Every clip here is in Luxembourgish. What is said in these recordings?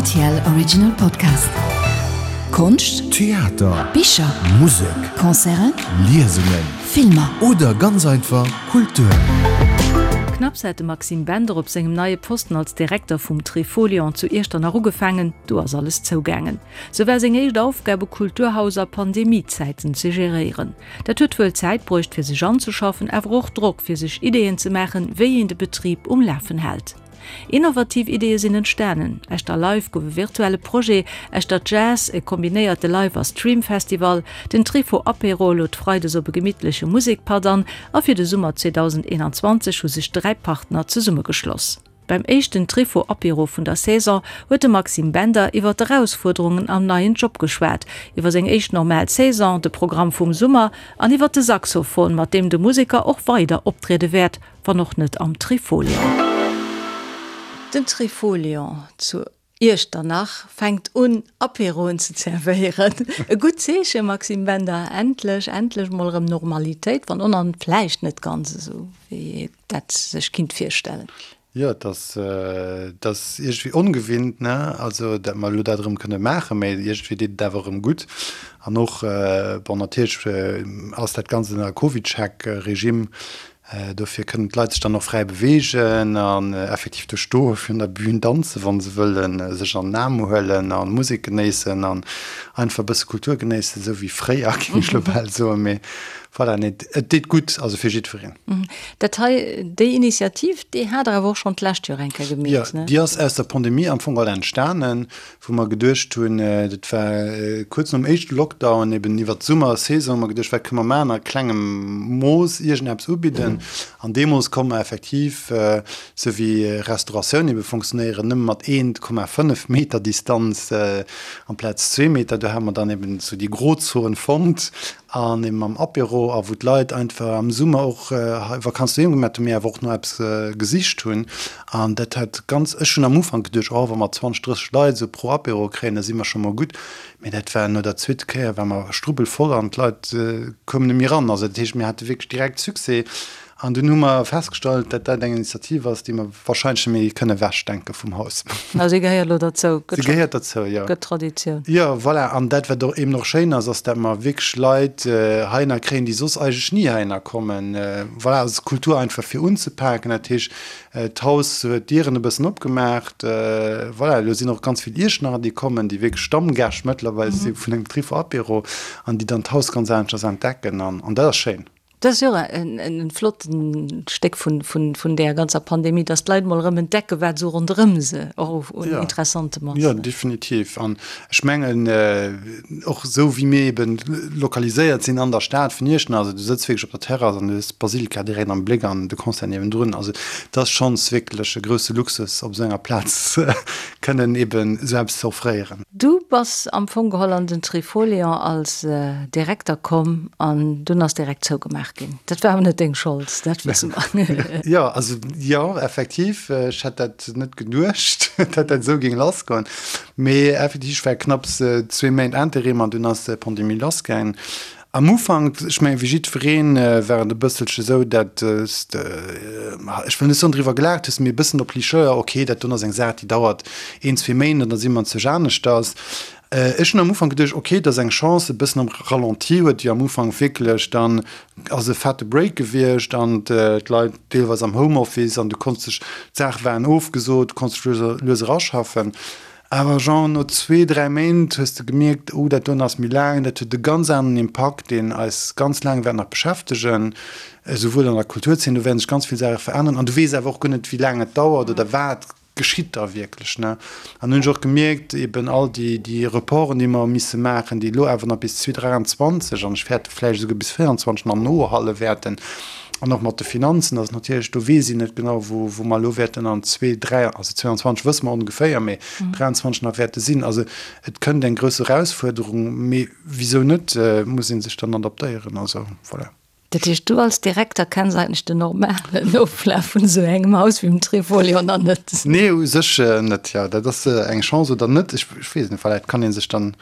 Rtl Original Podcast. Konscht, Theater, Bicher, Musek, Concerten, Liesungen, Filmer. Oder ganz einfach Kultur. Knapps hat de Maxime Bender op sengem neie Posten als Direkter vum Trifolion zu Iechternach ugefaangen, du ass alles zougaangen. Sou war seng éischt Aufgab e Kulturhaus a Pandemiezäiten ze geréieren. Dat huet wuel Zäit bruecht fir sech anzeschaffen, awer och Drock fir sech Ideeën ze maachen, wéi een de Betrib um Lafen hält. Innovativ Ideeë sinn entstanen, Echter Live gouf e virtuelle Projet, Echter Jazz e kombinéierte Live a Stream-Festival, den Trifo Apéro lod freides op e gemittleche Musekpatt an a fir de Summer 2021 hu sech 3 Partner zesummegeschloss. Beim éischten Trifo Apéro vun der Saison huet de Maxime Bender iwwer d'Erausfuerderungen am neien Job geschwat, iwwer seng éischt normal Saison, de Programm vum Summer an iwwer de Saxophon, mat deem de Museker och weider optriede wäert, wann och net am Trifolion. Den Trifolion zu Iechternach fänkt un, Apéroen ze zerwéieren. E gutt Zeechen, Maxime Bender, endlech, endlech mol erëm Normalitéit, wann och nach vläicht net ganz esou, wéi ee dat sech kinnt virstellen. Jo, et ass, et ass iergendwéi ongewinnt, ne, also dat mer elo dat erëm kënne maachen, mä iergendwéi deet et awer erëm gutt. An och, bon, natierlech ass dat Ganzt ënner Covid-Check-Regime, Dofir kënnen d'Leit sech dann och fräi beweegen an effektiv do stoe virun der Bühn, danzen, wa se wëllen, sech an den Aarm huelen a Musek genéissen an einfach e bësse Kultur genéissen, esou wéi fréier, géing ech elo bal soen. Mee voilà, nee, et deet gutt, also fir jiddwereen. Dat hei, déi Initiativ, déi hat Der awer och schonn d'lescht Joer eng Kéier gemeet, ne? Jo, déi ass aus der Pandemie am Fong all entstanen. wou mer geduecht hunn, dat war kuerz nom éischte Lockdown, eben iwwert d'Summersaison, hu mer geduecht, wat kënne mer maachen a klengem Mooss iergendeppes ubidden. An deemools konnt mer effektiv, sou wéi Restauratioun ebe funktionéieren, nëmme mat 1,5 Meter Distanz amplaz zwee Meter, do hate mer dann eben sou déi Grozon fonnt An eben mam Apéro a wou d'Leit einfach am Summer och hei Vakanz doheem gemat hunn, mee awer och no eppes gesicht hunn. An dat hat ganz, ech hunn am Ufank geduecht, oh wa mer 20, 30 Leit esou pro Apéro kréien, da si mer scho mol gutt. Mee dat war no der zweete Kéier war mer strubbelvoll an d'Leit koumen net méi eran. Also dat heescht, mir hate wierklech direkt Succès. An dunn hu mer festgestallt, datt dat eng Initiativ ass, déi mer wahrscheinlech net méi kënne ewechdenke vum Haus. Ah, si gehéiert elo derzou. Si gehéiert derzou, jo. Gëtt Traditioun. Jo, voilà. An dat, wat och eben och schéin ass, ass, datt mer wierklech Leit heihinner kréien, déi soss eigentlech ni heihinner kommen. Voilà, also d'Kultur einfach fir unzepaken. Dat heescht, d'Haus huet d'Dieren e bëssen opgemaacht. Voilà, elo sinn och ganz vill Iechternacher, déi kommen, déi wierklech Stammgäscht mëttlerweil si vun engem Trifo Apéro an déi dann d'Haus ganz aneschters entdecken. An dat ass schéin. Dat ass jo och e flotten Stéck vun där ganzer Pandemie, dass d'Leit mol erëm entdecken, wat esou ronderëm se och un Interessantem ass. Jo, definitiv. An ech mengen, och esou wéi mir eeben lokaliséiert sinn an der Stad vun Iechternach, also du sëtz wierklech op der Terrass an du hues d'Basilika direkt am Bléck an de Concert niewendrun. Also et ass schonns wierklech e grousse Luxus, op esou enger Plaz kënnen eeben esou eppes ze offréieren. Du bass am Fong geholl an den Trifolion als Direkter komm an dunn ass direkt zougemaach ginn. Dat war awer net deng Schold, dat wësse mer. Jo, also jo, effektiv, ech hätt dat net geduecht, datt dat esou géing lassgoen. Mee effektiv, ech war knapps zwee Méint Interim an dunn ass d'Pandemie lassgaangen. Am Ufank, ech mengen, wéi jiddwereen, war et e bësselche esou, dat s de, ech wëll net soen driwwer gelaacht hues, mee e bëssen op Licheur, ok, dat doen ass eng Saach, déi dauert een, zwee Méint an da si mer zech aneschters. Ech hunn am Ufank geduecht, ok, dat ass eng Chance, e bëssen am Ralenti huet jo am Ufank wierklech, dann ass e fette Break gewiescht an d'Leit deelweis am Homeoffice an du konns dech, d'Saache waren ofgesot, du konns dech lues a lues eraschaffen. Awer genre no zwee, dräi Méint hues de gemierkt, oh dat doen ass méi laang, dat huet e ganz aneren Impakt, deen eis ganz laang wäert nach beschäftegen, esouwuel an der Kulturzeen, do wäerten sech ganz vill Saache veränneren an du weess awer och guer net, wéi laang et dauert oder wat geschitt da wierklech, ne. An hunn ech och gemierkt, eben all déi, déi Reporten, déi mer hu misse maachen, déi elo awer nach bis 2023 an ech fäerte vläicht esouguer bis 2024 nach nohalle wäerten, An och mat de Finanzen ass et natierlech, do weess een net genau, wou, wou mer elo wäerten an zwee, dräi, also 22 wësse mer ongeféier, mee 23 nach wäerte sinn. Also et kënnt eng grouss Erausfuerderung, mee wisou net, muss ee sech dann adaptéieren. Also voilà. Dat heescht, du als Direkter kenns eigentlech den normalen Oflaf vun esou engem Haus wéi dem Trifolion nach net? Nee, u sech net, jo. Dat ass eng Chance oder net, ech weess et net. Voilà, et kann ee sech dann.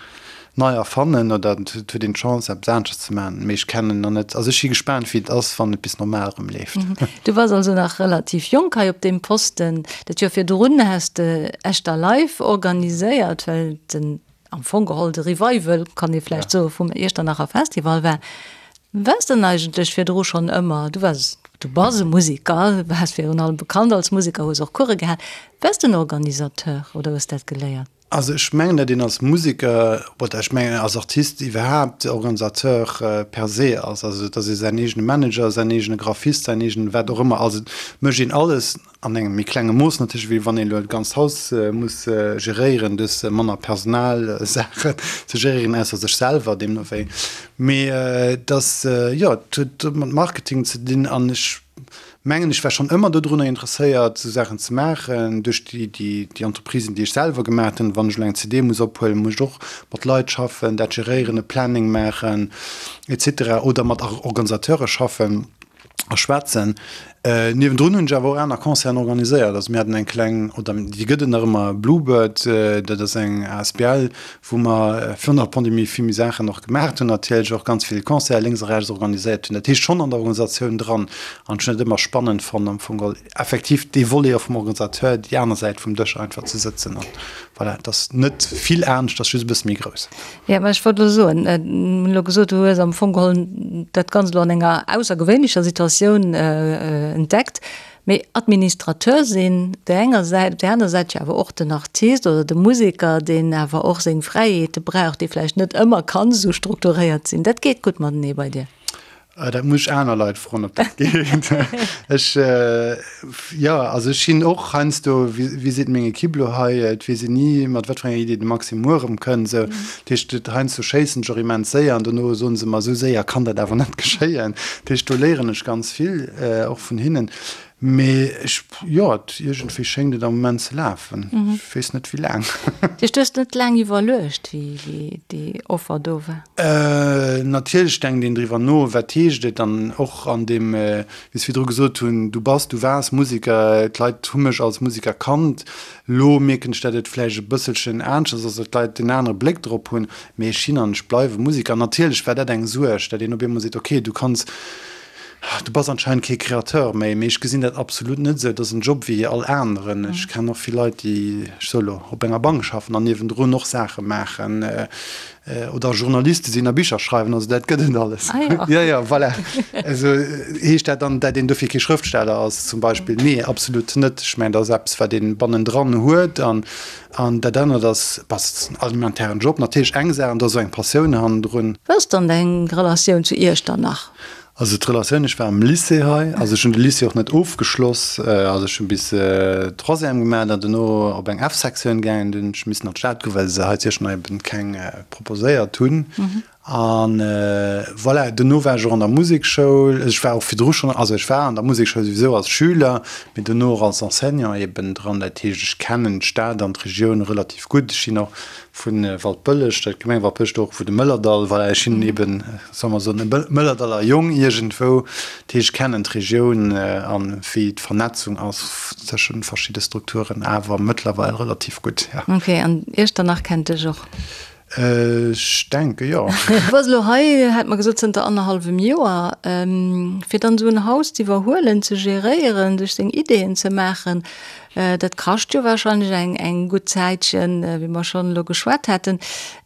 nei erfannen oder et huet een d'Chance eppes aneschters ze maachen, mee ech kennen nach net, also ech si gespaant wéi et ass wann et bis normal erëm leeft. Du bass also nach relativ jonk hei op deem Posten. Dat Joer virdrun has de Echter Live organiséiert, well den am Fong geholl de Revival, kann ee vläicht soen, vum Iechternacher Festival war. Waars de denn eigentlech virdru schonn ëmmer, du waars, du bass e Museker, waars virun allem bekannt als Museker, hues och Course gehal, waars de en Organisateur oder hues dat geléiert? Also ech mengen, datt een als Museker oder ech mengen als Artist iwwerhaapt Organisateur per se ass. Also datt ee säin eegene Manager, säin eegene Graphist, säin eegene wat och ëmmer ass. Et mécht een alles an engem méi klenge Mooss natierlech, wéi wann een elo e ganzt Haus muss geréieren. Du hues manner Personalsaachen ze geréieren, ausser sech selwer deemno wéi. Mee et ass, jo, et huet mat Marketing ze dinn an ech mengen, ech war schonn ëmmer dodrunner interesséiert, esou Saachen ze maachen. Duerch déi, déi, déi Entreprisen, déi ech selwer gemaat hunn, wann ech elo eng CD muss ophuelen, muss ech och mat Leit schaffen, dat geréieren, e Planning maachen, et cetera oder mat Organisateure schaffen a schwätzen. Niewendrun hunn ech awer och aner Concerten organiséiert. Also mir haten eng kleng, oder déi gëtt et nach ëmmer, Bluebird, dat ass eng asbl, wou mer virun der Pandemie vill méi Saachen och gemaacht hunn, natierlech och ganz vill Concerten lénks a rechts organiséiert hunn. Dat heescht schonn an der Organisatioun dran. An ech hunn et ëmmer spannend fonnt am Fong geholl effektiv dee Volet och vum Organisateur, déi aner Säit vum Dësch einfach ze sëtzen. An voilà, et ass net vill anescht, et ass just e bësse méi grouss. Jo, mä ech wollt elo soen, mir hunn elo gesot, du hues am Fong geholl dat Ganzt elo an enger aussergewéinlecher Situatioun entdeckt. Mee Administrateur sinn op där enger Säit, op där aner Säit jo awer och den Artist oder de Museker, deen awer och seng Fräiheete brauch, dee vläicht net ëmmer kann esou strukturéiert sinn. Dat geet gutt matenee bei dir? Dat muss ech aner Leit froen, ob dat geet. Ech, jo, also ech sinn och heiansdo, wéi seet meng Equipe elo hei, et weess een ni, mat wat fir enger Idee de Maxime muer erëmkënnt. Esou, dat heescht, heiansdo schéissen ech och immens séier an dono soen se mer, esou séier kann dat awer net geschéien. Dat heescht, do léieren ech ganz vill och vun hinnen. Mee ech, jo, et, iergendwéi schéngt et am Moment ze lafen. Ech weess net, wéi laang. Dat heescht, du hues net laang iwwerluecht, wéi, wéi déi Offer do war? Natierlech denkt een driwwer no, wat heescht et dann och an deem, wéi ech virdru gesot hunn, du bass, du waars Museker, d'Leit hu mech als Museker kannt. Lo mierken ech, datt et vläicht e bësselchen aneschters ass, datt d'Leit en anere Bléck drop hunn. Mee ech sinn an ech bleiwe Museker. Natierlech war dat eng Suerg, datt een op eemol seet, okay, du kanns, Du bass anscheinend kee Créateur méi, mee ech gesinn dat absolut net esou. Et ass en Job wéi all aneren. Ech kennen och vill Leit, déi, ech soe lo, op enger Bank schaffen an niewendrun och Saache maachen oder Journaliste sinn a Bicher schreiwen. Also dat gëtt et alles. Ah jo. Jo, jo, voilà. Also heescht dat dann, dat een dofir kee Schrëftsteller ass zum Beispill? Nee, absolut net. Ech mengen, dat ass eppes, wat ee bannendran huet an An dat anert ass, bass en alimentairen Job natierlech eng Saach an da sou eng Passioun hannendrun. Wéi ass dann deng Relatioun zu Iechternach? Also d'Relatioun, ech war am Lycée hei, also ech hunn de Lycée och net ofgeschloss, also ech hunn bis Troisième gemaach an dono op eng F-Sektioun gaangen, dunn hunn ech missen an d'Stad goen, well se hei zu Iechternach eben keng proposéiert hunn. An voilà, dono war ech och an der Musekschoul. Ech war och virdru schonn, also ech war an der Musekschoul souwisou als Schüler, mee dono och als Enseignant eben dran. Dat heescht, ech kennen d'Stad an d'Regioun relativ gutt. Ech sinn och vu Waldbëlleg, der Gemeng Waldbëlleg, do och vu de Mëllerdall. Voilà, ech sinn eben, solle mer soen, e Mëllerdaller Jong iergendwou. Dat heescht, ech kennen d'Regioun an wéi d'Vernetzung ass tëschent verschidde Strukturen awer mëttlerweil relativ gutt, jo. Ok, an Iechternach kennt dech och? Ech denke jo. Du bass elo hei, hat mer gesot, zënter annerhallwem Joer. Fir dann esou en Haus z'iwwerhuelen, ze geréieren, sech seng Ideeën ze maachen, dat kascht jo warscheinlech eng eng gutt Zäitchen, wéi mer schonn elo geschwat haten.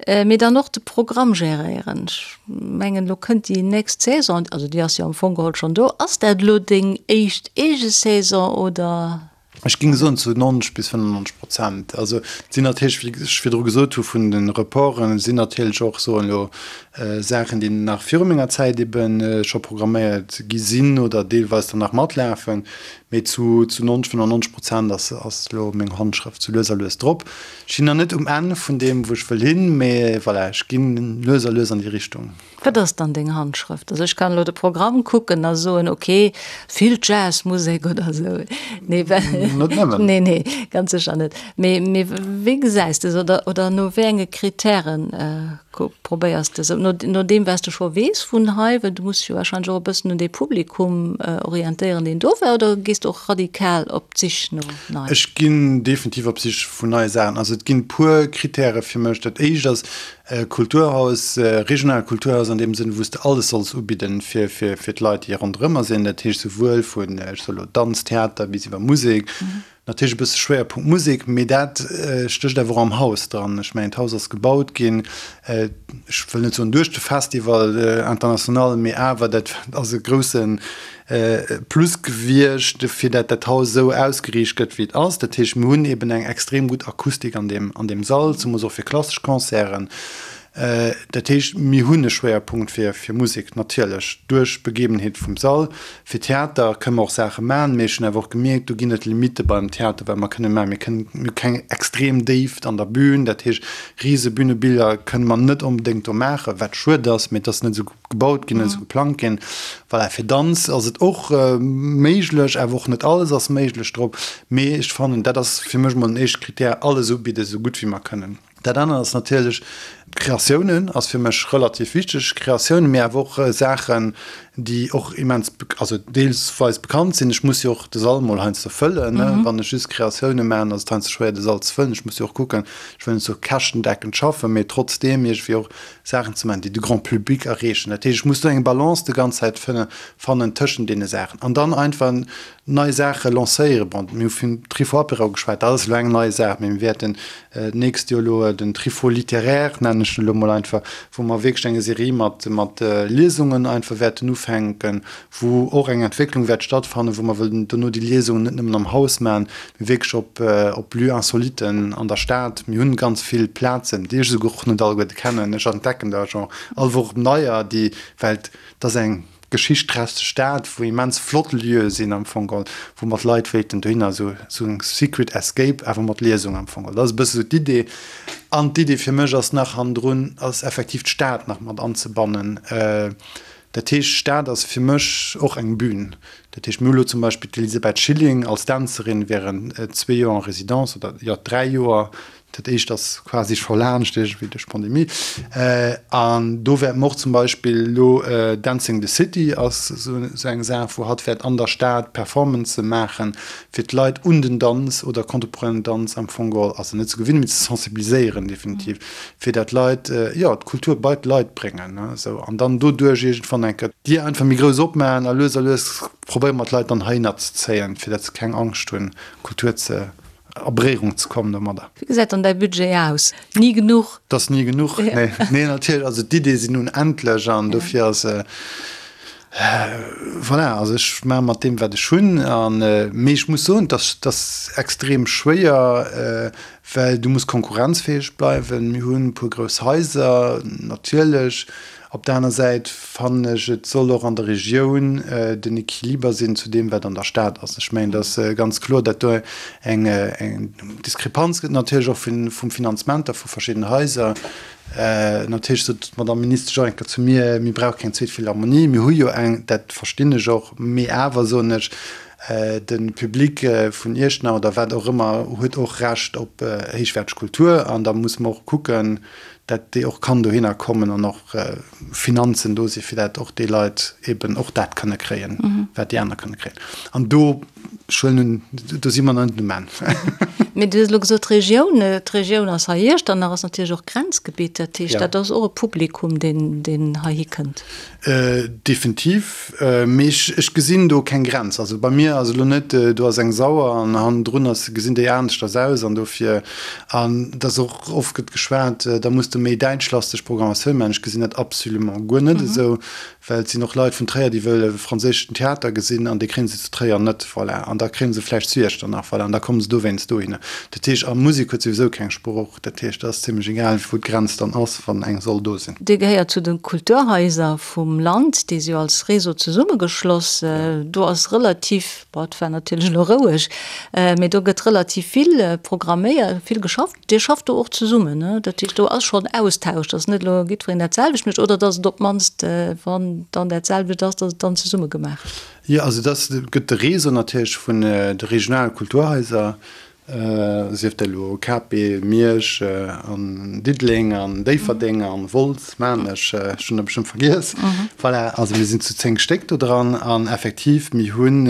Mee dann och de Programm geréieren. Ech mengen, elo kënnt déi nächst Saison, also déi ass jo am Fong geholl schonn do. Ass dat elo deng éischt eege Saison oder? Ech géing soen zu 90 bis 95 Prozent. Also et sinn natierlech, wéi ech virdru gesot hu vun de Reporten, et sinn natierlech och, soen elo, Saachen, déi nach viru menger Zäit ebe scho programméiert gi sinn oder deelweis dann nach matlafen. Mee zu 90, 95 Prozent ass ass elo meng Handschrëft sou lues a lues drop. Ech sinn nach net um Enn vun deem, wou ech wëll hin, mee voilà, ech ginn lues a lues an déi Richtung. Wat ass dann deng Handschrëft? Also ech kann elo de Programm kucken a soen, ok, vill Jazzmusek oder esou. Nee, Net nëmmen. Nee, nee, ganz sécher net. Mee, mee wéi gesäis de se oder, oder no wéi enge Kritären? Probéiers de sou, no deem wat s de scho weess vun hei, well du muss dech jo warscheinlech och e bëssen un dee Publikum orientéieren, deen do war, oder gees de och radikal op d'Sich no neien? Ech ginn definitiv op d'Sich vun neie Saachen. Also et ginn e puer Krittäre fir mech. Dat éischt ass Kulturhaus, regionaalt Kulturhaus an deem Sënn, wou s de alles solls ubidden fir fir d'Leit, déi ronderëmmer sinn. Dat heescht souwuel vun, ech soe lo, Danz, Theater bis iwwer Musek. Natierlech e bësse Schwéierpunkt Musek, mee dat stécht awer och am Haus dran. Ech mengen, d'Haus ass gebaut ginn, ech wëll net soen duerch de Festival international, mee awer dat ass e grousse Plus gewiescht, fir dat dat Haus esou ausgeriicht gëtt, wéi et ass. Dat heescht, mir hunn eeben eng extrem gutt Akustik an deem, an deem Sall, zemoos och fir klassesch Concerten. Dat heescht, mir hunn e Schwéierpunkt fir Musek natierlech duerch d'Begebenheet vum Sall. Fir Theater kënne mer och Saache maachen, mee ech hunn awer och gemierkt, do ginn et Limitte beim Theater, wat mer kënne maachen. Mir kënnen, mir hu keng extrem Déift an der Bühn, dat heescht, rise Bühnebiller kënne mer net onbedéngt do maachen, wat schued ass, mee et ass net esou gebaut ginn, net esou geplangt ginn. Voilà, fir Danz ass et och méiglech, awer och net alles ass méiglech drop. Mee ech fannen, dat ass fir mech emol den éischte Krittär, alles ubidden, esou gutt wéi mer kënnen. Dat anert ass natierlech, Kreatiounen ass fir mech relativ wichteg. Kreatiounen, mee awer och Saachen, déi och immens, also deelsweis bekannt sinn. Ech muss jo och de Sall mol heiansdo fëllen, ne. Wann ech just Kreatioune maachen, ass et heiansdo schwéier, de Sall ze fëllen. Ech muss jo och kucken, ech wëll net sou käschtendeckend schaffen, mee trotzdeem iergendwéi och Saachen ze maachen, déi de Grand public erreechen. Dat heescht, ech muss do eng Balance de ganz Zäit fannen tëschent deene Saachen. An dann einfach nei Saache lancéieren. Bon, mir hu vum Trifo Apéro geschwat, dat ass elo eng nei Saach, mee mir wäerten d'nächst Joer elo den Trifo littéraire, nennen ech en elo mol einfach, wou mer wierklech eng Serie mat, mat Liesungen einfach wäerten ufänken, wou och eng Entwécklung wäert stattfannen, wou mer wëllen dono déi Liesungen net nëmmen am Haus maachen, mee wierklech op, op Lieux-insoliten an der Stad. Mir hunn ganz vill Plazen, déi ech esouguer och net alleguerte kennen. Ech entdecken der jo all Woch neier, déi, well et ass eng geschichtträchteg Stad, wou immens flott Lieue sinn am Fong geholl, wou mer d'Leit wéilten dohinner, esou esou eng Secret Escape awer mat Liesung am Fong geholl. Dat ass e bësse sou d'Idee. An d'Idee fir mech ass nach hannendrun, ass effektiv d'Stad nach mat anzebannen. Dat heescht, d'Stad ass fir mech och eng Bühn. Dat heescht, mir hu lo zum Beispill d'Elisabeth Schilling als Dänzerin während zwee Joer en Résidence, oder jo, dräi Joer, Dat éischt ass quasi scho laanscht iergendwéi duerch d'Pandemie. An do wäerte mer och zum Beispill elo Dancing the City ass esou eng Saach, wou hatt wäert an der Stad Performancë maachen, fir d'Leit un den Danz oder contemporainen Danz am Fong geholl, also net ze gewinnen, mee ze sensibiliséieren definitiv, fir dat d'Leit, jo, d'Kultur bei d'Leit bréngen, esou. An dann doduerch iergendwann eng Kéier d'Dier einfach méi grouss opmaachen a lues a lues probéiere mer d'Leit dann heihinner ze zéien, fir dat se keng Angscht hunn, Kultur ze a Beréierung ze kommen domadder. Wéi gesäit dann däi Budget aus? Ni genuch? Et ass ni genuch, nee. Nee, natierlech, also d'Iddie sinn unendlech an dofir ass, voilà, also ech maache mat deem, wat ech hunn. An, mee ech muss soen, et ass, et ass extrem schwéier, well du muss konkurrenzfäeg bleiwen. Mir hunn e puer grouss Haiser, natierlech. Op der aner Säit fannen ech, et soll och an der Regioun den Equiliber sinn zu deem, wat an der Stad ass. Ech mengen, et ass ganz kloer, datt do eng Diskrepanz gëtt, natierlech och vum Finanzement da vu verschiddenen Haiser. Natierlech sot d'Madame Ministesch och eng Kéier zu mir, mir brauche keng zweet Philharmonie, mir hu jo eng. Dat verstinn ech och. Mee awer, soen ech, de Public vun Iechternach oder wat och ëmmer huet och Recht op héichwäerteg Kultur an da musse mer och kucken, dat déi och kann dohinner kommen an och Finanzen do si fir dat och déi Leit eben och dat kënne kréien, wat déi aner kënne kréien. An do, ech huelen un, do si mer nach net um Enn. Mee du hues elo gesot d'Regioun, d'Regioun ass hei Iechternach ass natierlech och Grenzgebitt, dat heescht, dat ass och e Publikum, deen, deen heihi kënnt. Definitiv, mee ech, ech gesinn do keng Grenz. Also bei mir ass elo net, do ass eng Sauer an hannendrun ass, gesinn déi aneschters aus an dofir, an et ass och oft gëtt geschwat, da muss de méi däitschlasteg Programmatioun maachen. Ech gesinn dat absolument guer net esou, well et sinn och Leit vun Tréier, déi wëlle franséischen Theater gesinn an dee kréie se zu Tréier net, voilà, an da kréie se vläicht zu Iechternach, voilà, an da komme se dowéinst dohinner. Dat heescht, a Musek huet souwisou keng Sprooch. Dat heescht, et ass zimlech egal, wou d'Grenz dann ass, wann eng soll do sinn. Dir gehéiert zu de Kulturhaiser vum Land, déi si jo als Réseau zesummegeschloss. Do ass relativ, bon, et war natierlech elo roueg, mee do gëtt relativ vill programméiert, vill geschafft. Dir schafft do och zesummen, ne? Dat heescht, do ass schonn Austausch, dass net elo jiddwereen dat selwecht mécht oder dass et op d'mannst, wann dann dat selwecht ass, dass et dann zesumme gemaach gëtt. Jo, also dat gëtt de Réseau natierlech vun de regionale Kulturhaiser. Sief dat elo KP, Miersch an Diddeleng an Déifferdeng an Wolz, Maarnech, ech hunn der bestëmmt vergiess. Voilà, also mir sinn zu 10 Stéck do dran an effektiv, mir hunn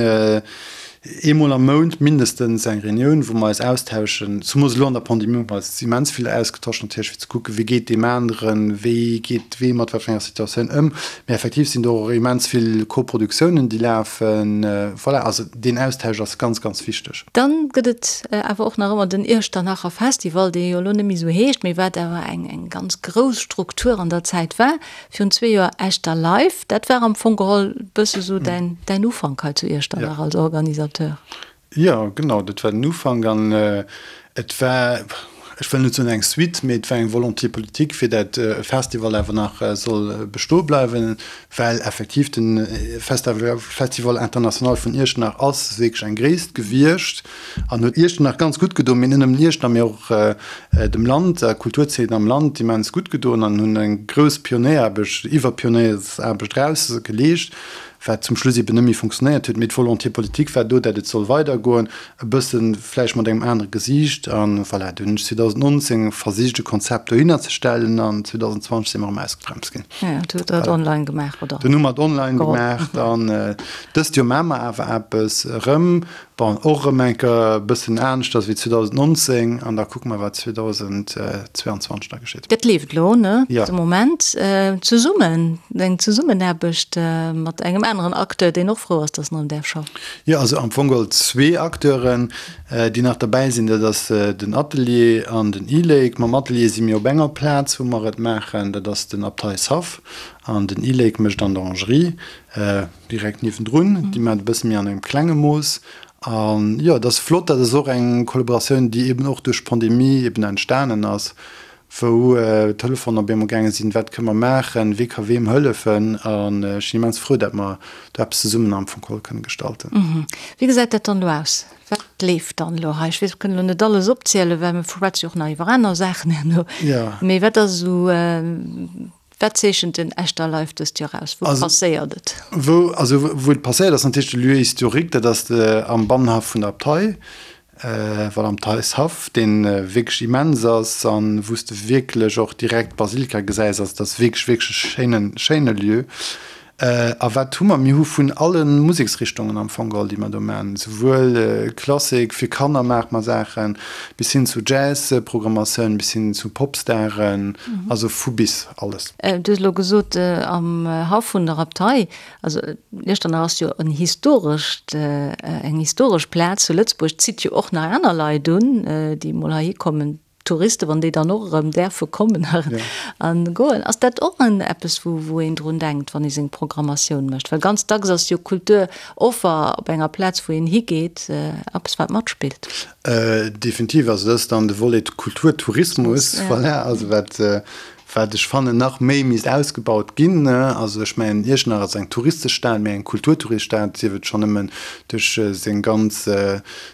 eemol am Mount mindestens eng Reunioun, wou mer eis austauschen. Zemoos elo an der Pandemie hu mer eis immens vill ausgetosch natierlech, fir ze kucken, wéi geet deem aneren, wéi geet wee mat wat fir enger Situatioun ëm. Mee effektiv sinn do och immens vill Koproduktiounen, déi lafen. Voilà, also deen Austausch ass ganz, ganz wichteg. Dann gëtt et awer och nach ëmmer den Iechternacher Festival, dee jo elo net méi esou heescht, mee wat awer eng eng ganz grouss Struktur an der Zäit war. Virun zwee Joer Echter Live, dat war am Fong geholl bësse sou däin däin Ufank hei zu Iechternach als Organisateur. Jo, genau, dat war den Ufank an et war, ech wëll net soen eng Suite, mee et war eng Volonté politique, fir dat e Festival awer nach soll bestoe bleiwen, well effektiv de Festival International vun Iechternach ass wierklech eng Gréisst gewiescht an huet Iechternach ganz gutt gedoen, mee net nëmmen Iechternach, mee och dem Land, der Kulturzeen am Land immens gutt gedoen an hunn eng grouss Pionéieraarbecht, iwwer Pionéiersaarbecht eraus geleescht. Wat zum Schluss eben net méi funktionéiert huet. Mee d'Volonté politique war do, dat et soll weidergoen, e bësse vläicht mat engem anere Gesiicht. A voilà, du hunn ech 2019 versicht, e Konzept dohinner ze stellen an 2020 si mer erëm ausgebremst ginn. Jo, du hutt dat online gemaach, oder? Dunn hu mer et online gemaach. An dëst Joer maache mer awer eppes erëm. Bon, och erëm eng Kéier e bëssen aneschters wéi 2019 an da kucke mer, wat 2022 da geschitt. Dat leeft elo, ne? Jo. De Moment. Zesummen, eng Zesummenaarbecht mat engem aneren Acteur, deen och frou ass, dass en erëm däerf schaffen. Jo, also am Fong geholl zwee Acteuren, déi nach derbäi sinn. Dat ass den Atelier an den e-Lake. Mam Atelier si mir op enger Plaz, wou mer et maachen, dat ass den Abteishaff. An den e-Lake mécht an der Orangerie. Direkt niewendrun, déi maachen et e bësse méi an engem klenge Mooss. An jo, et ass flott, dat ass och eng Kollaboratioun, déi eben och duerch d'Pandemie eben entstanen ass, wou d'Telefonen op eemol gaange sinn, wat kënne mer maachen, wie ka weem hëllefen. An ech sinn immens frou, dat mer do eppes zesummen am Fong geholl kënne gestalten. Wéi gesäit dat dann elo aus? Wat leeft dann elo hei? Ech weess, mer kënnen elo net alles opzielen, well mir schwätze jo och nach iwwer aner Saachen herno. Mee wat ass esou Wat zeechent den Echter Live dëst Joer aus? Wou passéiert et? Wou, also wou et passéiert ass natierlech de Lieu historique, dat ass am Bannenhaff vun der Abtei, voilà, am Theishaff, dee wierklech immens ass an wou s de wierklech och direkt d'Basilika gesäis. Also dat ass wierklech, wierklech e schéinen, schéine Lieu. A wat hu mer? Mir hu vun alle Museksrichtungen am Fong geholl, déi mer do maachen, souwuel Klassik, fir Kanner maache mer Saachen, bis hin zu Jazz-Programmatioun, bis hin zu Popstaren, also vu bis alles. Du hues elo gesot, am Haff vun der Abtei. Also Iechternach ass jo en historescht, eng historesch Plaz zu Lëtzebuerg, zitt jo och nach aner Leit un, déi emol heihi kommen. Touristen, wann déi dann och erëm däerfe kommen a goen, ass dat och en eppes, wou wou een drun denkt, wann ee seng Programmatioun mécht? Well ganz dacks ass jo Kulturoffer op enger Plaz, wou een higeet, eppes wat matspillt. Definitiv, also dat ass dann de Volet Kulturtourismus, voilà, also wat wat ech fannen nach méi misst ausgebaut ginn. Also ech mengen, Iechternach ass eng touristesch Stad, mee eng Kulturtouriststad, sief et schonn nëmmen duerch seng ganz,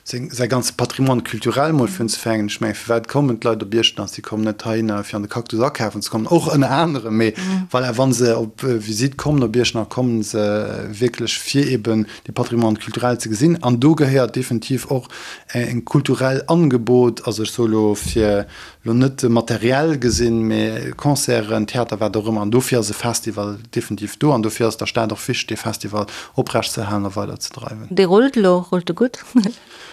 seng, säi ganze Patrimoine culturel mol fir unzefänken. Ech mengen, firwat kommen d'Leit op Iechternach? Si kommen net heihinner, fir an de Cactus akafen ze kommen, och ënner anerem, mee voilà, wa se op Visitt kommen op Iechternach, kommen se wierklech fir eben de Patrimoine culturel ze gesinn. An do gehéiert definitiv och en kulturell Angebot, also ech soe lo fir Lo net materiell gesinn, mee Concerten, Theater, wat och ëmmer. An dofir ass e Festival definitiv do an dofir ass der Stad och wichteg, dee Festival oprecht ze erhalen a weider ze dreiwen. Dee rullt elo, rullt e gutt?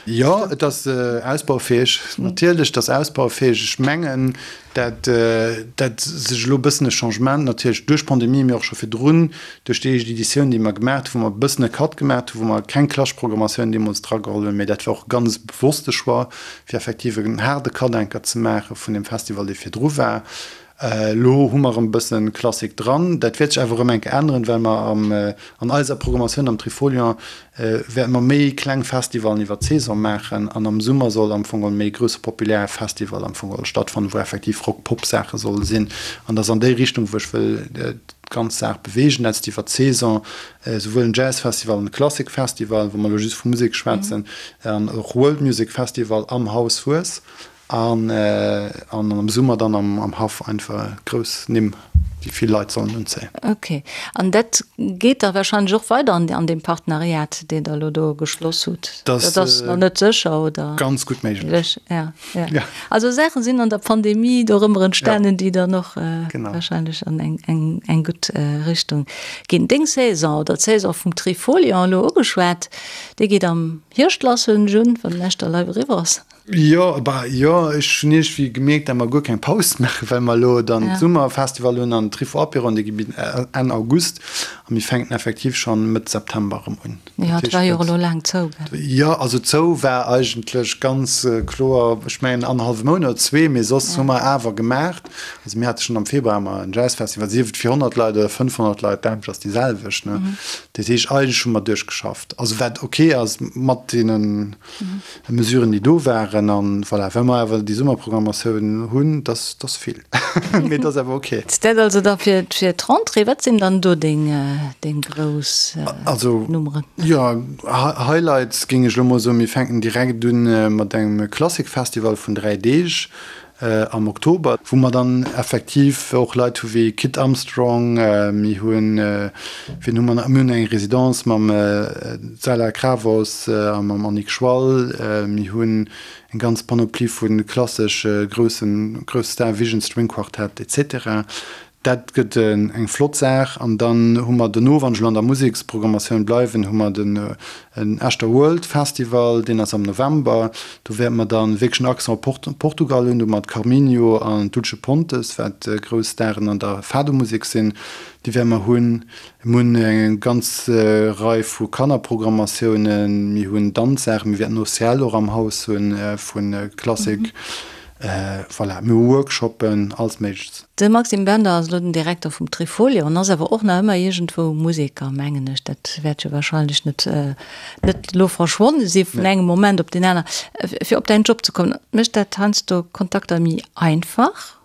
Jo, et ass ausbaufäeg. Natierlech, et ass ausbaufäeg. Ech mengen, dat dat sech elo e bëssen e Changement natierlech duerch d'Pandemie, mee och scho virdrun duerch déi éischt Editioun, déi mer gemaach hunn, wou mer e bëssen e Cut gemaach hunn, wou mer keng klassesch Programmatioun deemools drageholl hunn, mee dat war och e ganz bewosste Choix, fir effektiv en haarde Cut-Anker ze maache vun deem Festival, dee virdru war. Elo hu mer erëm e bësse Klassik dran. Dat wäert sech awer erëm eng Kéier änneren, well mer am, an eiser Programmatioun am Trifolion wäerte mer méi kleng Festivalen iwwer d'Saison maachen an am Summer soll am Fong geholl méi e grousse populär Festival am Fong geholl stattfannen, wou effektiv Rock-Pop-Saache solle sinn. An dat ass an déi Richtung, wou ech wëll d'ganz Saach beweegen, dat ass iwwer d'Saison esouwuel en Jazzfestival an e Klassikfestival, wa mer elo just vu Musek schwätzen, an och World Music Festival am Haus Hues an an am Summer dann am Haff einfach grouss Nimm, déi. déi vill Leit sollen unzéien. Ok. An dat geet da warscheinlech och weider an an deem Partenariat, deen Der elo do geschloss hutt? Dat ass nach net sécher, oder? Ganz gutt méiglech. Ja, ja. Also Saache sinn an der Pandemie dorëmmer entstanen, déi dann och warscheinlech an eng, eng, eng gutt Richtung ginn. Deng Saison oder d'Saison vum Trifolion elo ugeschwat, déi geet am Hierscht lass, huelen ech un, wann den Echter Live eriwwer ass. Jo, bah jo, ech hunn iergendwéi gemierkt, dat mer guer keng Paus maachen, well mer elo dann d'Summerfestival hunn an Trifo Apéro an dee geet Enn August a mir fänken effektiv schonn Mëtt September erëm un. Jo, et war jo och elo laang zou, gell? Jo, also zou war eigentlech ganz kloer, ech mengen annerhallwe Mount oder zwee, mee soss hu mer awer gemaacht. Also mir hate schonn am Februar ëmmer en Jazzfestival, sief et fir 100 Leit oder 500 Leit, d'Aarbecht ass déi selwecht, ne? Dat heescht, eigentlech hu mer duerchgeschafft, also wat ok ass mat deenen Mesuren, déi do waren. An voilà, well mer awer déi Summerprogrammatioun hunn, dass ass vill, mee et ass awer ok. Dat also da fir d'Rentrée. Wat sinn dann do deng, deng grouss Nummeren? Jo, Highlights géing ech elo mol soen, mir fänken direkt un mat engem Klassikfestival vun 3 Deeg am Oktober, wou mer dann effektiv och Leit hu wéi Kit Armstrong, mir hunn, wien hu mer nach, mir hunn eng Residence mam Zala Kravos a mam Annick Schwall, mir hunn eng ganz Panoplie vu klassesch groussen, grousse Star, Vision String Quartet et cetera. Dat gëtt eng flott Saach. An dann hu mer dono, wann ech elo an der Museksprogrammatioun bleiwen, hu mer den Echter World Festival, deen ass am November. Do wäerte mer dann wierklech en Accent op Portugal hunn, do mat Carminho an Dulce Pontes, wat grouss Staren an der Fado-Musek sinn, déi wäerte mer hunn. Mir hunn eng ganz Rei vu Kannerprogrammatiounen, mir hunn Danzsaachen, mir wäerten OCL och am Haus hunn vu Klassik. Voilà, mir hu Workshoppen, alles Méigleches. De Maxime Bender ass elo den Direkter vum Trifolion an ass awer och nach ëmmer iergendwou Museker, mengen ech. Dat wäert jo wahrscheinlech net net elo verschwonne si vun engem Moment op deen aner. Fir op däin Job ze kommen, mécht dat heiansdo Kontakter méi einfach,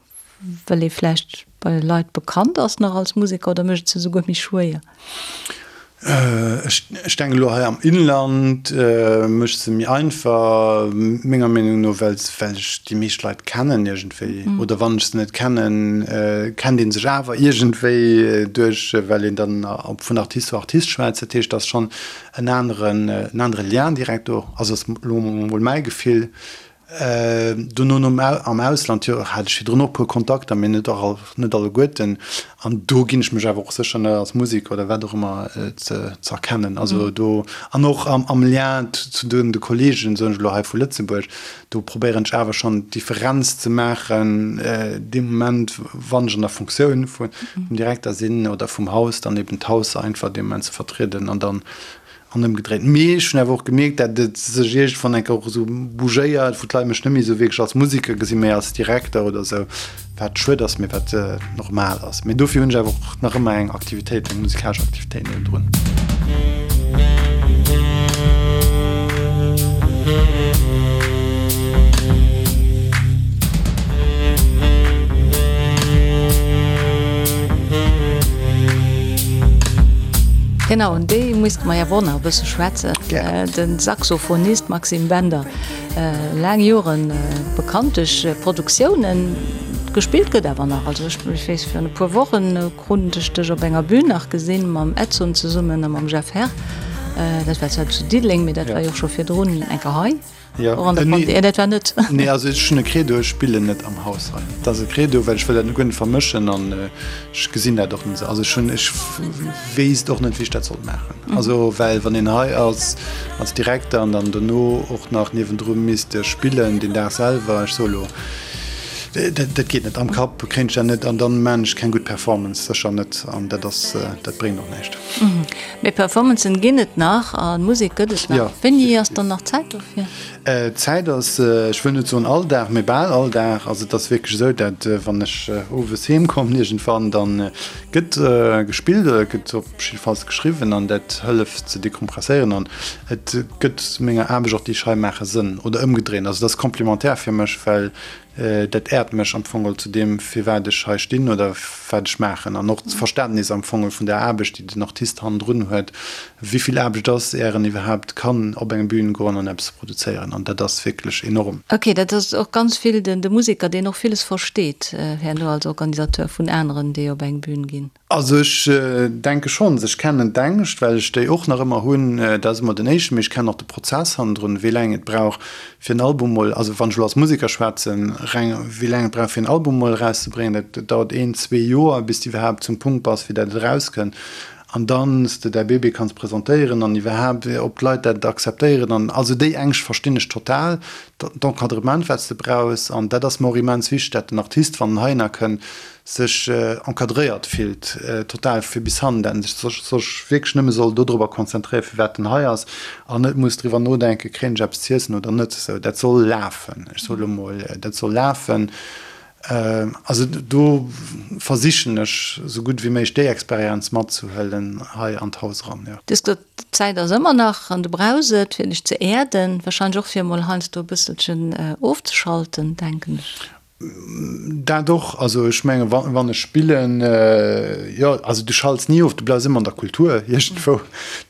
well ee vläicht bei Leit bekannt ass nach als Museker oder mécht et se esouguer méi schwéier? Ech denken elo hei am Inland mécht se méi einfach, menger Meenung no, well ech déi meescht Leit kennen iergendwéi. Oder wann ech se net kennen, kennt ee sech awer iergendwéi duerch, well een dann vun Artist zu Artist schwätzt. Dat heescht, et ass schonn en aneren, en anere Lien direkt do. Also ass elo mol mäi Gefill. Dono nom am Ausland, jo, hat ech virdrun och e puer Kontakter, mee net all, net alleguerten. An do ginn ech mech awer och sécher net als Museker oder wat och ëmmer ze ze erkennen. Also do, an och am am Lien zu den de Kollegen, soen ech elo hei vu Lëtzebuerg, do probéieren ech awer schonn d'Differenz ze maachen, dee Moment wann ech an der Funktioun vum Direkter sinn oder vum Haus, dann eben d'Haus einfach dee Moment ze vertrieden an dann An ëmgedréit. Mee ech hunn awer och gemierkt, dat et sech iergendwann eng Kéier och esou bougéiert, wou d'Leit mech net méi esou wierklech als Museker gesinn, mee als Direkter oder esou, wat schued ass, mee wat normal ass. Mee dofir hunn ech awer och nach ëmmer eng Aktivitéit, eng musikalesch Aktivitéit niewendrun. Genau, un déi misste mer jo awer och nach e bësse schwätzen. De Saxophonist Maxime Bender, laang Joren bekannt duerch Produktiounen. Gespillt gëtt awer nach. Also ech weess, virun e puer Wochen krut ech dech op enger Bühn nach gesinn, mam Edson zesummen a mam Jeff Herr. Dat war zwar zu Diddeleng, mee dat war jo och scho virdrun eng Kéier hei. Jo. Och an der Pandemie, nee, dat war net. Nee, also ech hunn e Credo, ech spillen net am Haus hei. Dat ass e Credo, well ech wëll dat guer net vermëschen an ech gesinn dat och net esou. Also ech hunn, ech wéisst och net, wéi ech dat sollt maachen. Also well wann een hei ass als Direkter an dann dono och nach niewendru misst spillen deen Dag selwer, ech soe lo, dat, dat geet net. Am Kapp kréien ech dat net an dann maan ech keng gutt Performance, sécher net. An dat ass, dat bréngt och näischt. Mee Performancen ginn et nach a Musek gëtt et nach. Jo. Wéini ass dann nach Zäit dofir? Zäit ass, ech wëll net soen all Dag, mee bal all Dag. Also et ass wierklech esou, dat wann ech owes heem kommen iergendwann, da gëtt gespillt oder gëtt op jiddefalls geschriwwen an dat hëlleft ze dekompresséieren an et gëtt menger Aarbecht och, déi ech hei maachen, Sënn oder ëmgedréint. Also et ass complémentaire fir mech, well. Dat äert mech am Fong zu deem, firwat ech hei stinn oder wat ech maachen. An och d'Verständnis am Fong vun der Aarbecht, déi den Artist hannendrun huet, wéi vill Aarbecht ass, är en iwwerhaapt kann op eng Bühn goen an eppes produzéieren. An dat ass wierklech enorm. Ok, dat ass och ganz vill de Museker, deen och villes versteet herno als Organisateur vun aneren, déi op eng Bühn ginn. Also ech denke schonns, ech kennen d'Ängscht, well ech déi och nach ëmmer hunn. Dat ass emol den éischten, mee ech kennen och de Prozess hannendrun, wéi laang et brauch fir en Album mol, also wann ech elo als Museker schwätzen, reng wéi laang et brauch fir en Album mol erauszebréngen. Dat dauert een, zwee Joer bis de iwwerhaapt zum Punkt bass fir dat et erauskënnt an dann s de däi Bébé kanns presentéieren an iwwerhaapt ob d'Leit dat akzeptéieren an also déi Ängscht verstinn ech total, d'Encadrement wat s de brauchs an dat ass mer och immens wichteg, dat den Artist wann en heihinner kënnt, sech encadréiert fillt, total fir bis hannen, dat en sech sech wierklech nëmme soll dodrobber konzentréieren, firwat en hei ass, an net muss driwwer nodenken, kréien ech eppes z'iessen oder net. Esou, dat soll lafen, ech soe lo mol, dat soll lafen. Also do versichen ech esou gutt wéi méiglech déi Experienz matzehuelen hei an d'Haus eran, jo. Du hues gesot, d'Zäit ass ëmmer nach an du brauchs et, fir dech ze äerden, warscheinlech och fir emol heiansdo e bësselchen ofzeschalten, denken ech. Dat och. Also ech menge wann ech spillen, jo, also du schalts ni of, du bleifs ëmmer an der Kultur iergendwou.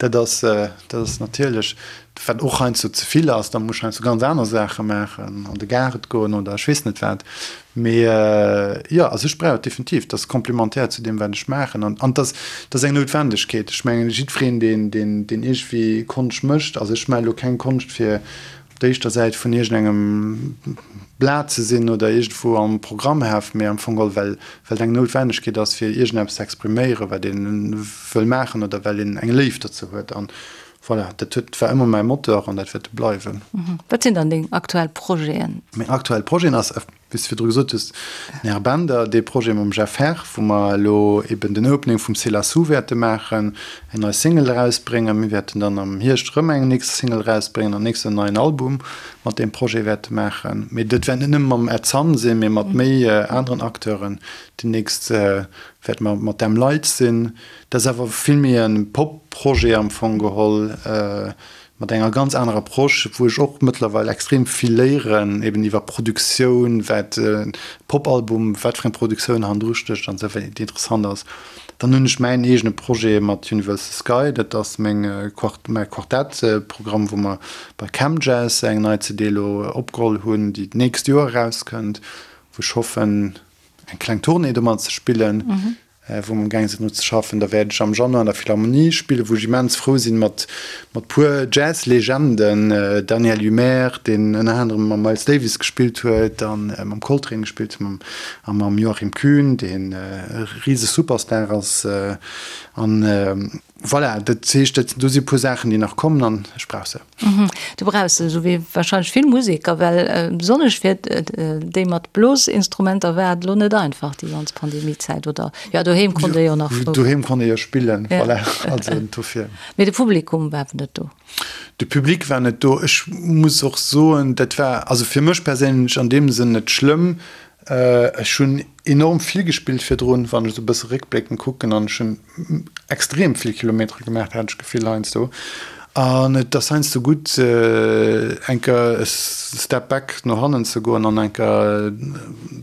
Dat ass, dat ass natierlech, wat och heiansdo ze vill ass, da muss ech heiansdo ganz aner Saache maachen, an de Gaart goen oder ech weess net wat. Mee jo, also ech brauch et definitiv. Dat ass komplementär zu deem wat ech maachen an an dat ass eng Noutwendegkeet. Ech mengen jiddwereen deen, deen, deen iergendwéi Konscht mécht, also ech maache lo keng Konscht fir op der éischter Säit vun iergendengem Blat ze sinn oder iergendwou am Programmheft, mee am Fong geholl, well well et eng Noutwennegkeet ass, fir iergendeppes ze expriméieren, wat ee wëll maachen oder well een eng Léift dozou huet. An voilà, dat huet, war ëmmer mäi Moteur an dat wäert e bleiwen. Wat sinn dann deng aktuell Projeten? Meng aktuell Projeten ass, Wéi s de virdru gesot hues, den Här Bender, dee Projet mam Jeff Herr, wou mer elo eben den Opening vum C'est la Sous wäerte maachen, eng nei Single erausbréngen. Mir wäerten dann am Hierscht erëm eng nächst Single erausbréngen an nächst en neien Album mat deem Projet wäerte maachen. Mee dat wäert net nëmme mam Ed Sun sinn, mee mat méi aneren Acteuren. Déi nächst wäerte mer mat Them Lights sinn. Dat ass awer vill méi e Pop-Projet am Fong geholl. Mat enger ganz anerer Approche, wou ech och mëttlerweil extrem vill léieren, eben iwwer Produktioun, wat e Popalbum, wat fir eng Produktioun hannendru stécht an esou weider, déi interessant ass. Dann hunn ech mäin eegene Projet mat Universal Sky, dat ass meng Quart-, mäi Quartettprogramm, wou mer bei CamJazz eng nei CD elo opgeholl hunn, déi d'nächst Joer erauskënnt, wou ech hoffen, eng kleng Tournée domat ze spillen. Wou mer amgaang sinn dru ze schaffen. Da wäert ech am Januar an der Philharmonie spillen, wou ech immens frou sinn, mat mat puer Jazz-Legenden, Daniel Humair, deen ënner anerem mam Miles Davis gespillt huet a mam Coltrane gespillt huet, a mam Joachim Kühn, deen e rise Superstar ass. An voilà, dat heescht, dat do si puer Saachen, déi nach kommen an ech brauch se. Du brauchs se, esou wéi warscheinlech vill Museker, well besonnesch fir déi mat Blosinstrumenter war et elo net einfach déi ganz Pandemiezäit, oder? Jo, doheem konnt ee jo nach frou. Doheem konnt ee jo spillen, voilà, also dofir. Mee de Publikum war awer net do. De Public war net do. Ech muss och soen, dat war also fir mech perséinlech an deem Sënn net schlëmm, Ech hunn enorm vill gespillt virdrun, wann ech esou e bësse réckbléckend kucken, an ech hunn extrem vill Kilometere gemaach, hat ech d'Gefill heiansdo. An et ass heiansdo gutt, eng Kéier e Step back no hannen ze goen an eng Kéier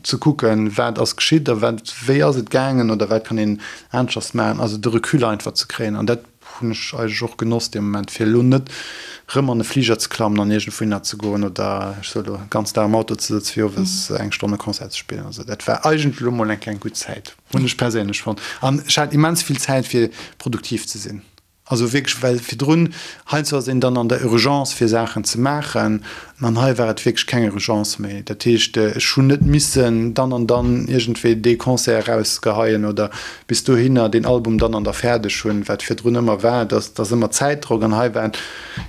ze kucken, wat ass geschitt a wat, wéi ass et gaangen oder wat kann een aneschters maachen. Also de Recul einfach ze kréien an dat Hunn ech eigentlech och genoss dee Moment, fir elo net rëm an e Fliger ze klammen an iergendwouhinner ze goen oder ech soe lo ganz Dag am Auto ze sëtzen, fir owes eng Stonn e Concert ze spillen. Also dat war eigentlech elo mol eng kleng gutt Zäit, hunn ech perséinlech fonnt. An ech hat immens vill Zäit fir produktiv ze sinn. Also wierklech, well virdrun heiansdo ass een dann an der Urgence fir Saachen ze maachen An hei war et wierklech keng Urgence méi. Dat heescht, ech hunn net missen dann an dann iergendwéi dee Concert erausgeheien oder bis dohinner deen Album dann an da fäerdeg hunn, wat virdrun ëmmer war, dass dass ëmmer Zäitdrock. An hei war et,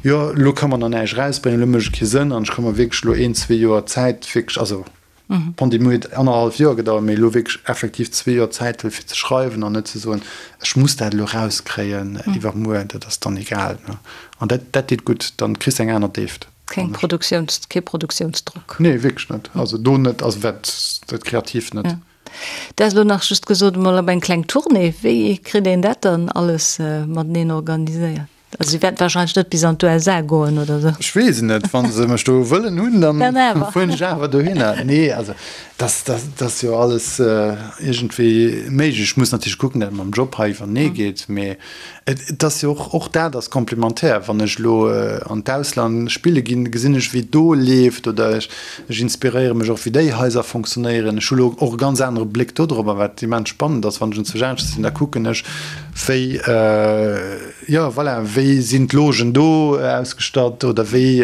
jo, elo ka mer nach näischt erausbréngen, elo mécht et kee Sënn an ech ka mer wierklech elo een, zwee Joer Zäit wierklech, also d'Pandemie huet annerhallef Joer gedauert, mee elo wierklech effektiv zwee Joer Zäit huelen, fir ze schreiwen an net ze soen, ech muss dat elo erauskréien iwwermuer, dat ass dann egal. An dat dat deet gutt, dann kriss de eng aner Déift. Keng Produktiouns, kee Produktiounsdrock. Nee, wierklech net. Also do net, also wat dat Kreatiivt net. Ja. Du has elo nach just gesot, emol op eng kleng Tournée. Wéi kritt een dat dann alles mateneen organiséiert? Also si wäerten wahrscheinlech net bis an d'USA goen oder sou. Ech weess et net. Wa se mech do wëllen hunn, dann fueren ech awer dohinner. Nee, also dat ass jo alles iergendwéi méiglech. Ech muss natierlech kucken, datt et mam Job hei iwwernee geet. Mee et ass jo och, och dat ass komplementär. Wann ech elo an d'Ausland spille ginn, gesinn ech, wéi et do leeft oder ech inspiréiere mech och, wéi déi Haiser fonctionnéieren. Ech hu elo och e ganz anere Bléck dodrop, wat immens spannend ass. Wann ech enzwousch aneschters sinn, da kucken ech, wéi, jo voilà, wéi sinn d'Logen do ausgestatt oder wéi,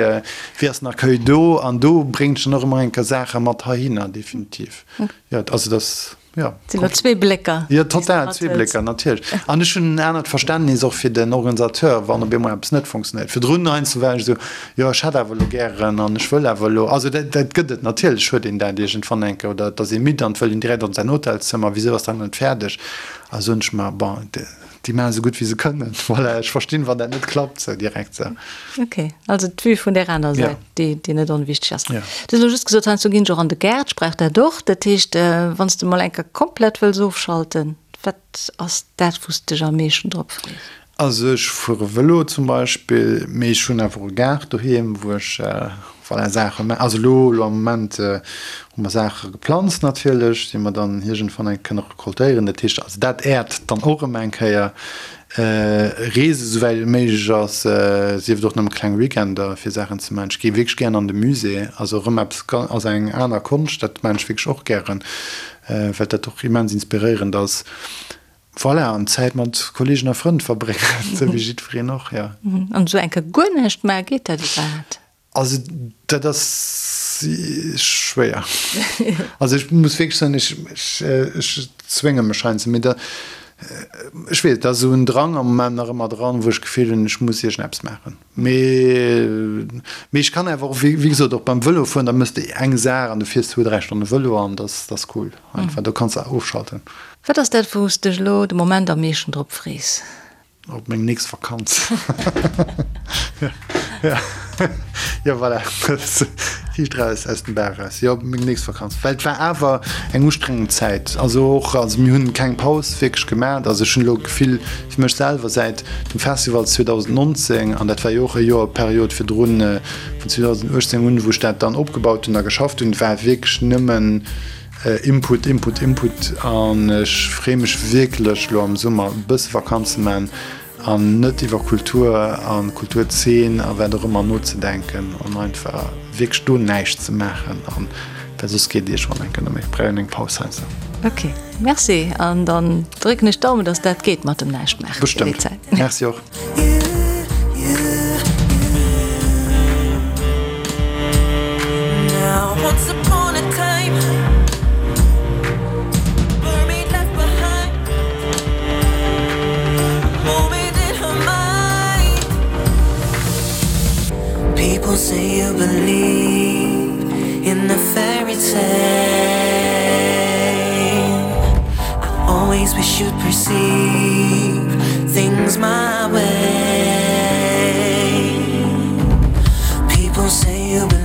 wéi ass den Accueil do? An do bréngt ech dann och ëmmer eng Kéier Saache mat heihinner, definitiv. Jo, also dass, jo. Et sinn elo zwee Blécker. Jo, total, zwee Blécker, natierlech. An ech hunn en anert Verständnis och fir den Organisateur, wann op eemol eppes net funktionéiert. Virdrun heiansdo war ech esou, jo ech hätt awer elo gären an ech wëll awer elo. Also dat, dat gëtt et, natierlech huet een dat iergendwann eng Kéier, oder et ass ee midd an et wëll een direkt an säin Hotelszëmmer, wisou ass dat net fäerdeg? A soen ech mer, bon, déi maachen esou gutt wéi se kënnen. Voilà, ech verstinn, wann dat net klappt sou direkt sou. Ok, also d'Vue vun där aner Säit, déi, déi net onwichteg ass. Du hues elo just gesot, heiansdo ginn ech och an de Gaart, ech brauch dat och. Dat heescht, wann s de mol eng Kéier komplett wëlls ofschalten, wat ass dat, wou s de dech am meeschten drop frees? Also ech fuere Vëlo zum Beispill, mee ech hunn awer och e Gaart doheem, wou ech voilà Saache ma. Also elo elo am Moment hu mer Saache geplanzt natierlech, déi mer dann iergendwann eng kënne recoltéieren. Dat heescht also dat äert dann och erëm eng Kéier. Reese souwäit et méiglech ass, sief et och nëmme kleng Weekender fir Saachen ze maachen. Ech gi wierklech gären an de Musée, also erëm eppes also eng aner Konscht, dat maachen ech wierklech och gären, well dat och immens inspiréierend ass. Voilà, an Zäit mat Kollegen a Frënn verbréngen, esou wéi jiddwereen och, jo. An esou eng Kéier guer näischt maachen, geet dat iwwerhaapt? Also dat ass schwéier. Also ech muss wierklech soen, ech, ech zwénge mech heiansdo, mee da, ech weess, et ass esou en Drang am Moment nach ëmmer dran, wou ech d'Gefill hunn, ech muss iergendeppes maachen. Mee, mee ech kann awer och, wéi gesot, och beim Vëlofueren, da méchs de eng Saach an du fiers zwou, dräi Stonne Vëlo an dat ass cool einfach, do kanns de ofschalten. Wat ass dat wou s dech elo de Moment am meeschten drop frees? Op meng nächst Vakanz. Jo voilà, riicht raus aus dem Bauch raus. Jo, op meng nächst Vakanz. Well et war awer eng ustrengend Zäit. Also och, also mir hunn keng Paus wierklech gemat. Also ech hunn elo d'Gefill fir mech selwer säit dem Festival 2019, an dat war jo och e Joer Period virdrun, vun 2018 un, wou ech dat dann opgebaut hunn a geschafft hunn, war wierklech nëmmen, Input, Input, Input an ech freeë mech wierklech elo am Summer e bësse Vakanz ze man an net iwwer Kultur an Kulturzeen a wat och ëmmer nozedenken an einfach wierklech do näischt ze maachen an well soss geet iergendwann eng Kéier net méi. Brauch een eng Paus heiansdo. Ok, merci an dann drécken ech d'Daumen, dass dat geet mat dem näischt maachen. Bestëmmt. Merci och. Things my way. People say you believe.